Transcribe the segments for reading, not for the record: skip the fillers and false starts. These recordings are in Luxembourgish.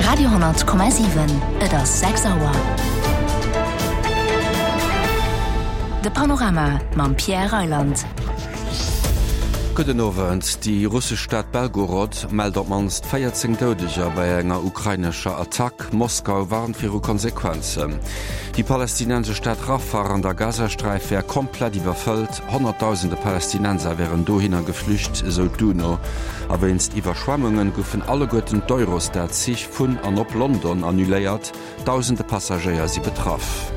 Radio,7 Et ass 6 Auer. De Panorama mam Pierre Reyland. Gudden Owend. Déi russesch Stad Belgorod mellt op d'mannst 14 Doudeger bei enger ukrainescher Attack. Moskau warnt viru Konsequenzen. Déi palästinensesch Stad Rafah an der Gazasträif wär komplett iwwerfëllt. Honnertdausende Palästinenser wären dohinner geflücht, esou d'UNO. A wéinst Iwwerschwemmunge goufen alleguerten d'Eurostar-Zich vun an op London annuléiert. Dausende Passagéier si betraff.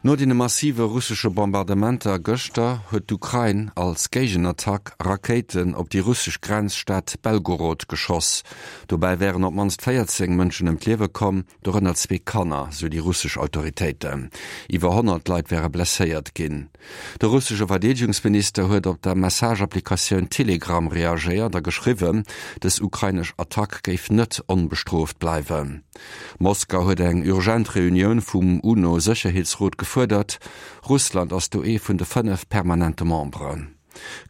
No deene massive russesche Bombardementer gëschter huet d'Ukrain als Géigenattack Rakéiten op déi russesch Grenzstad Belgorod geschoss. Dobäi wären op d'mannst 14 Mënschen ëm d'Liewe komm. Dorënner zwee Kanner, sou déi russesch Autoritéiten. Iwwer 100 Leit wäre blesséiert ginn. De russesche Verdeedegungsminister huet op der Message-Applikatioun Telegram reagéiert a geschriwwen, dës ukrainesch Attack géif net onbestrooft bleiwen. Moskau huet eng urgent Reunioun vum UNO-Sécherheetsrot gefuerdert. Russland ass do ee vun de 5 permanente Memberen.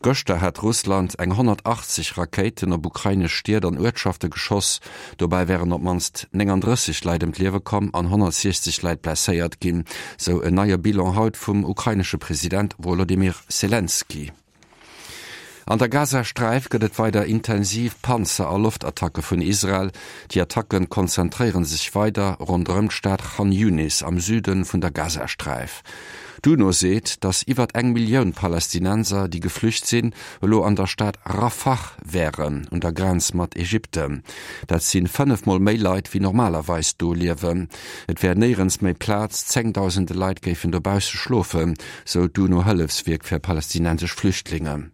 Gëschter hat Russland eng 180 Rakéiten op ukrainesch Stied an Uertschafte geschoss. Dobäi wären op d'mannst 39 Leit ëm d'Liewe komm an 160 Leit blesséiert ginn, sou en neie Bilan haut vum ukrainesche President Wolodymyr Selenskyj. An der Gazasträif gëtt et weider intensiv Panzer a Loftattacke vun Israel. Déi Attacke konzentréiere sech weider ronderëm d'Stad Chan Yunis am Süde vun der Gazasträif. D'UNO seet, datt iwwert eng Millioun Palästinenser, déi geflücht sinn, elo an der Stad Rafah wären, un der Grenz mat Ägypten. Dat si 5 Mol méi Leit, wéi normalerweis do liewen. Et wär néierens méi Plaz, zéngdausende Leit géifen dobausse schlofen, sou d'UNO-Hëllefswierk fir palästinensesch Flüchtlinge.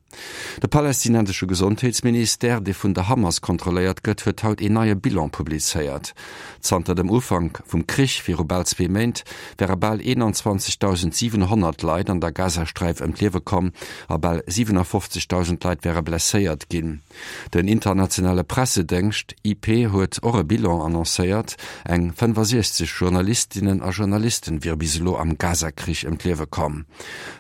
De palästinensesche Gesondheetsministère, dee vun der Hamas kontrolléiert gëtt, huet haut een neie Bilan publizéiert. Zanter dem Ufank vum Krich viru bal zwee Méint wäre bal 21.700 Leit an der Gazasträif ëm d'Liewe komm a bal 57.000 Leit wäre blesséiert ginn. Den internationale Pressedéngscht IP huet och e Bilan annoncéiert, Eng 65 Journalistinnen a Journalisten wiere bis elo am Gaza-Krich ëm d'Liewe komm.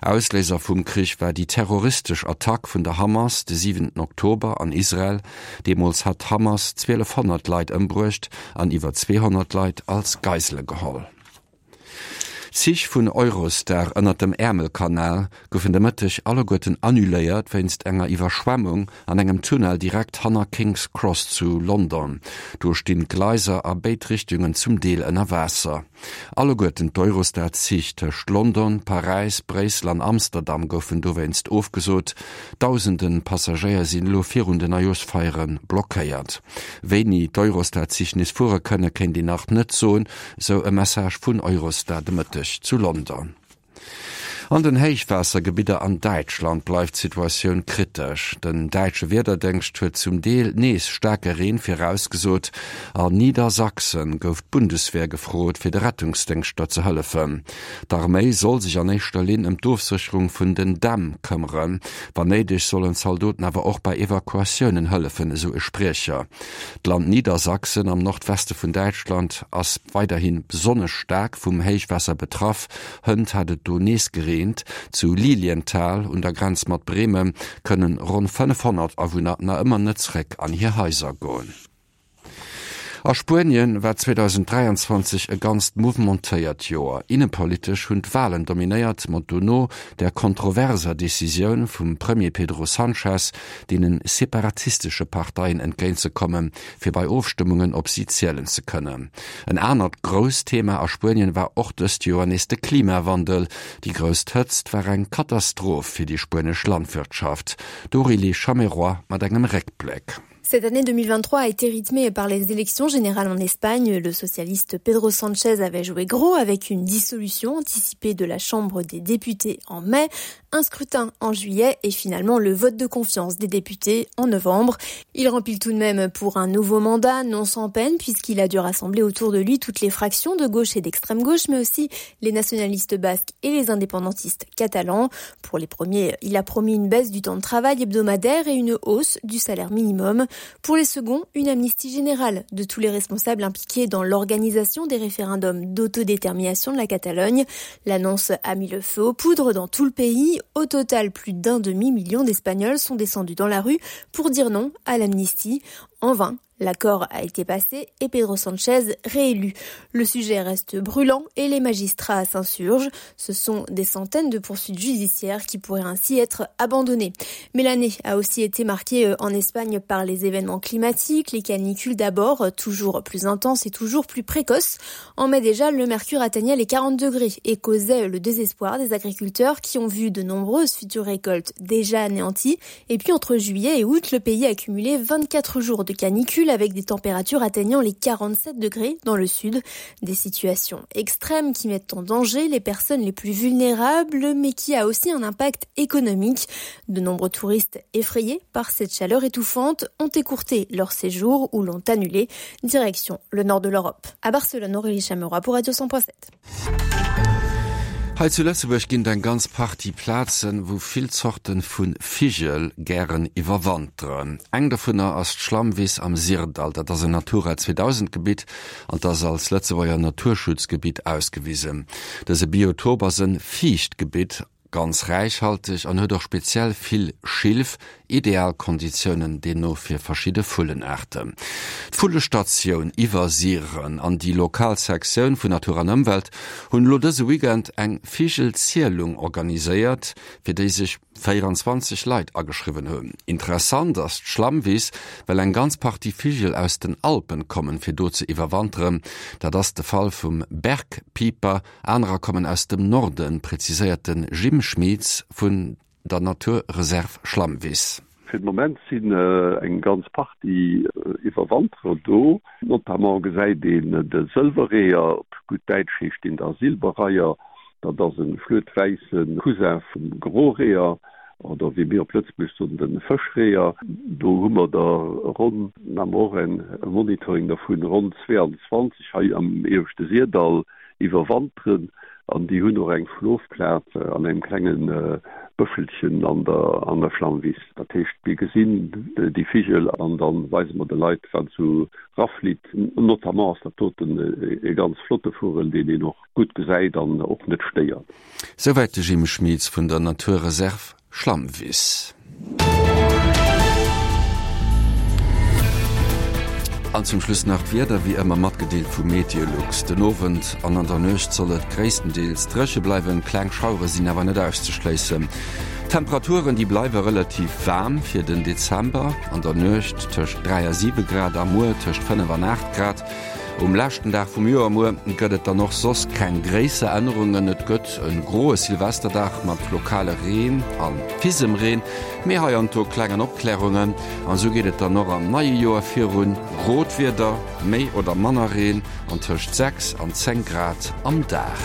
Ausléiser vum Krich war déi terroristesch Attack vun der Hamas de siwenten Oktober an Israel. Deemools hat d'Hamas 1.200 Leit ëmbruecht an iwwer 200 Leit als Geisele geholl. D'Zich vun Eurostar ënnert dem Äermelkanal goufen de Mëtteg alleguerten annuléiert wéinst enger Iwwerschwemmung an engem Tunnel direkt hanner King's Cross zu London. Do stinn d'Gleiser a béid Richtungen zum Deel ënner Waasser. Alleguerten d'Eurostar-Zich tëscht London, Paräis, Bréissel an Amsterdam goufen dowéinst ofgesot. Dausende Passagéier sinn elo virun den Neijooschfeiere blockéiert. Wéini d'Eurostar-Zich nees fuere kënne kéint een nach net soen, sou e Message vun Eurostar de Mëtteg zu London. An den Héichwaassergebidder an Däitschland bleift d'Situatioun kritesch. Den däitsche Wiederdéngscht huet zum Deel nees staarke Reen virausgesot. An Niedersachsen gouf d'Bundeswehr gefrot, fir de Rettungsdéngschter ze hëllefen. D'Arméi soll sech an éischter Linn ëm d'Ofsécherung vun den Dämm këmmeren. Wann néideg sollen d'Zaldoten awer och bei Evakuatiounen hëllefen, esou e Spriecher. D'Land Niedersachsen am Nordweste vun Däitschland ass weiderhi besonnesch staark vum Héichwaasser betraff. Hënt hat et do nees gereent. Zu Lilienthal un der Grenz mat Bremen kënnen ronn 500 Awunner nach ëmmer net zeréck an hir Haiser goen. A Spuenien war 2023 e ganzt mouvementéiert Joer. Innepolitesch hunn d'Walen dominéiert, mat dono der kontroverser Decisioun vum Premier Pedro Sanchez, deene separatistesche Parteien entgéintzekommen, fir bei Ofstëmmungen op si zielen ze kënnen. En anert grousst Thema a Spuenien war och dëst Joer nees de Klimawandel. Déi grousst Hëtzt war eng Katastroph fir déi spuenesch Landwirtschaft. D'Aurélie Chameroy mat engem Réckbléck. Cette année 2023 a été rythmée par les élections générales en Espagne. Le socialiste Pedro Sanchez avait joué gros avec une dissolution anticipée de la Chambre des députés en mai, un scrutin en juillet et finalement le vote de confiance des députés en novembre. Il remplit tout de même pour un nouveau mandat, non sans peine, puisqu'il a dû rassembler autour de lui toutes les fractions de gauche et d'extrême gauche, mais aussi les nationalistes basques et les indépendantistes catalans. Pour les premiers, il a promis une baisse du temps de travail hebdomadaire et une hausse du salaire minimum. Pour les seconds, une amnistie générale de tous les responsables impliqués dans l'organisation des référendums d'autodétermination de la Catalogne. L'annonce a mis le feu aux poudres dans tout le pays. Au total, plus d'un demi-million d'Espagnols sont descendus dans la rue pour dire non à l'amnistie. En vain, L'accord a été passé et Pedro Sanchez réélu. Le sujet reste brûlant et les magistrats s'insurgent. Ce sont des centaines de poursuites judiciaires qui pourraient ainsi être abandonnées. Mais l'année a aussi été marquée euh, en Espagne par les événements climatiques, les canicules d'abord, toujours plus intenses et toujours plus précoces. En mai déjà, le mercure atteignait les 40 degrés et causait le désespoir des agriculteurs qui ont vu de nombreuses futures récoltes déjà anéanties. Et puis entre juillet et août, le pays a accumulé 24 jours de canicule avec des températures atteignant les 47 degrés dans le sud. Des situations extrêmes qui mettent en danger les personnes les plus vulnérables, mais qui a aussi un impact économique. De nombreux touristes effrayés par cette chaleur étouffante ont écourté leur séjour ou l'ont annulé. Direction le nord de l'Europe. À Barcelone, Aurélie Chameroy pour Radio 100.7. Hei zu Lëtzebuerg ginn et eng ganz Partie Plazen, wou vill Zorte vu Vigel gären iwwerwanteren. Eng dovunner ass d'Schlammwiss am Syrdall. Dat ass en Natura 2000 Gebitt an 't ass als Lëtzebuerger Naturschutzgebitt ausgewisen. Dëse Biotop ass e Fiichtgebitt, ganz räichhalteg an huet och speziell vill Schilf, Ideal Konditiounen deemno fir verschidde Vullenaarten. D'Vullestatioun Iwwersiren an déi lokal Sektioun vun Natur an Ëmwelt hunn elo dëse Weekend eng Vigelzielung organiséiert, fir déi sech 24 Leit ageschriwwen hunn. Interessant ass d'Schlammwiss, well eng ganz Partie Vigel aus den Alpen kommen, fir do ze iwwerwanteren. Dat ass de Fall vum Bergpieper, anerer kommen aus dem Norden, präziséiert de Jim Schmieds vun der Natur Reserve Schlammwiss. Fir de Moment sinn eng ganz Partie Iwwerwanterer do. Notamment gesäit een de Sëlwerreeër, op gutt Däitsch heescht deen da Silberreiher. Dat ass e fluetwäisse Cousin vum Groreeër oder wéi mir op Lëtzebuerg soen, de Fëschreeër. Do hu mer der ronn, maache mer och e Monitoring dervun, ronn 22 hei am ieweschte Syrdall. iwwerwanteren an déi hunn och eng Schlofplaz an engem klenge Bëschelchen an der an der Schlammwiss. Dat heescht, mir gesinn déi Vigel an da weise mer de Leit, wat esou raflitt. Notamment ass dat doten e ganz flotte Vugel, deen een och gutt gesäit an och net stéiert. Souwäit de Jim Schmieds vun der Naturreserv Schlammwiss. An zum Schluss nach d'Wieder, wéi ëmmer matgedeelt vu Meteolux. Den Owend an an der Nuecht soll et gréisstendeels dréche bleiwen, kleng Schauere sinn awer net auszeschléissen. D'Temperaturen, déi bleiwe relativ waarm fir den Dezember, an der Nuecht tëscht 3 a 7 Grad a muer tëscht 5 an 8 Grad. Um leschten Dag vum Joer muer gëtt et dann och soss keng gréisser Ännerungen. Et gëtt e groe Silvesterdag mat lokale Reen a Fisemreen, mee hei an do klengen Opklärungen. An esou geet et dann och am neie Joer virun, grot Wieder, méi oder manner Reen an tëscht 6 an 10 Grad am Dag.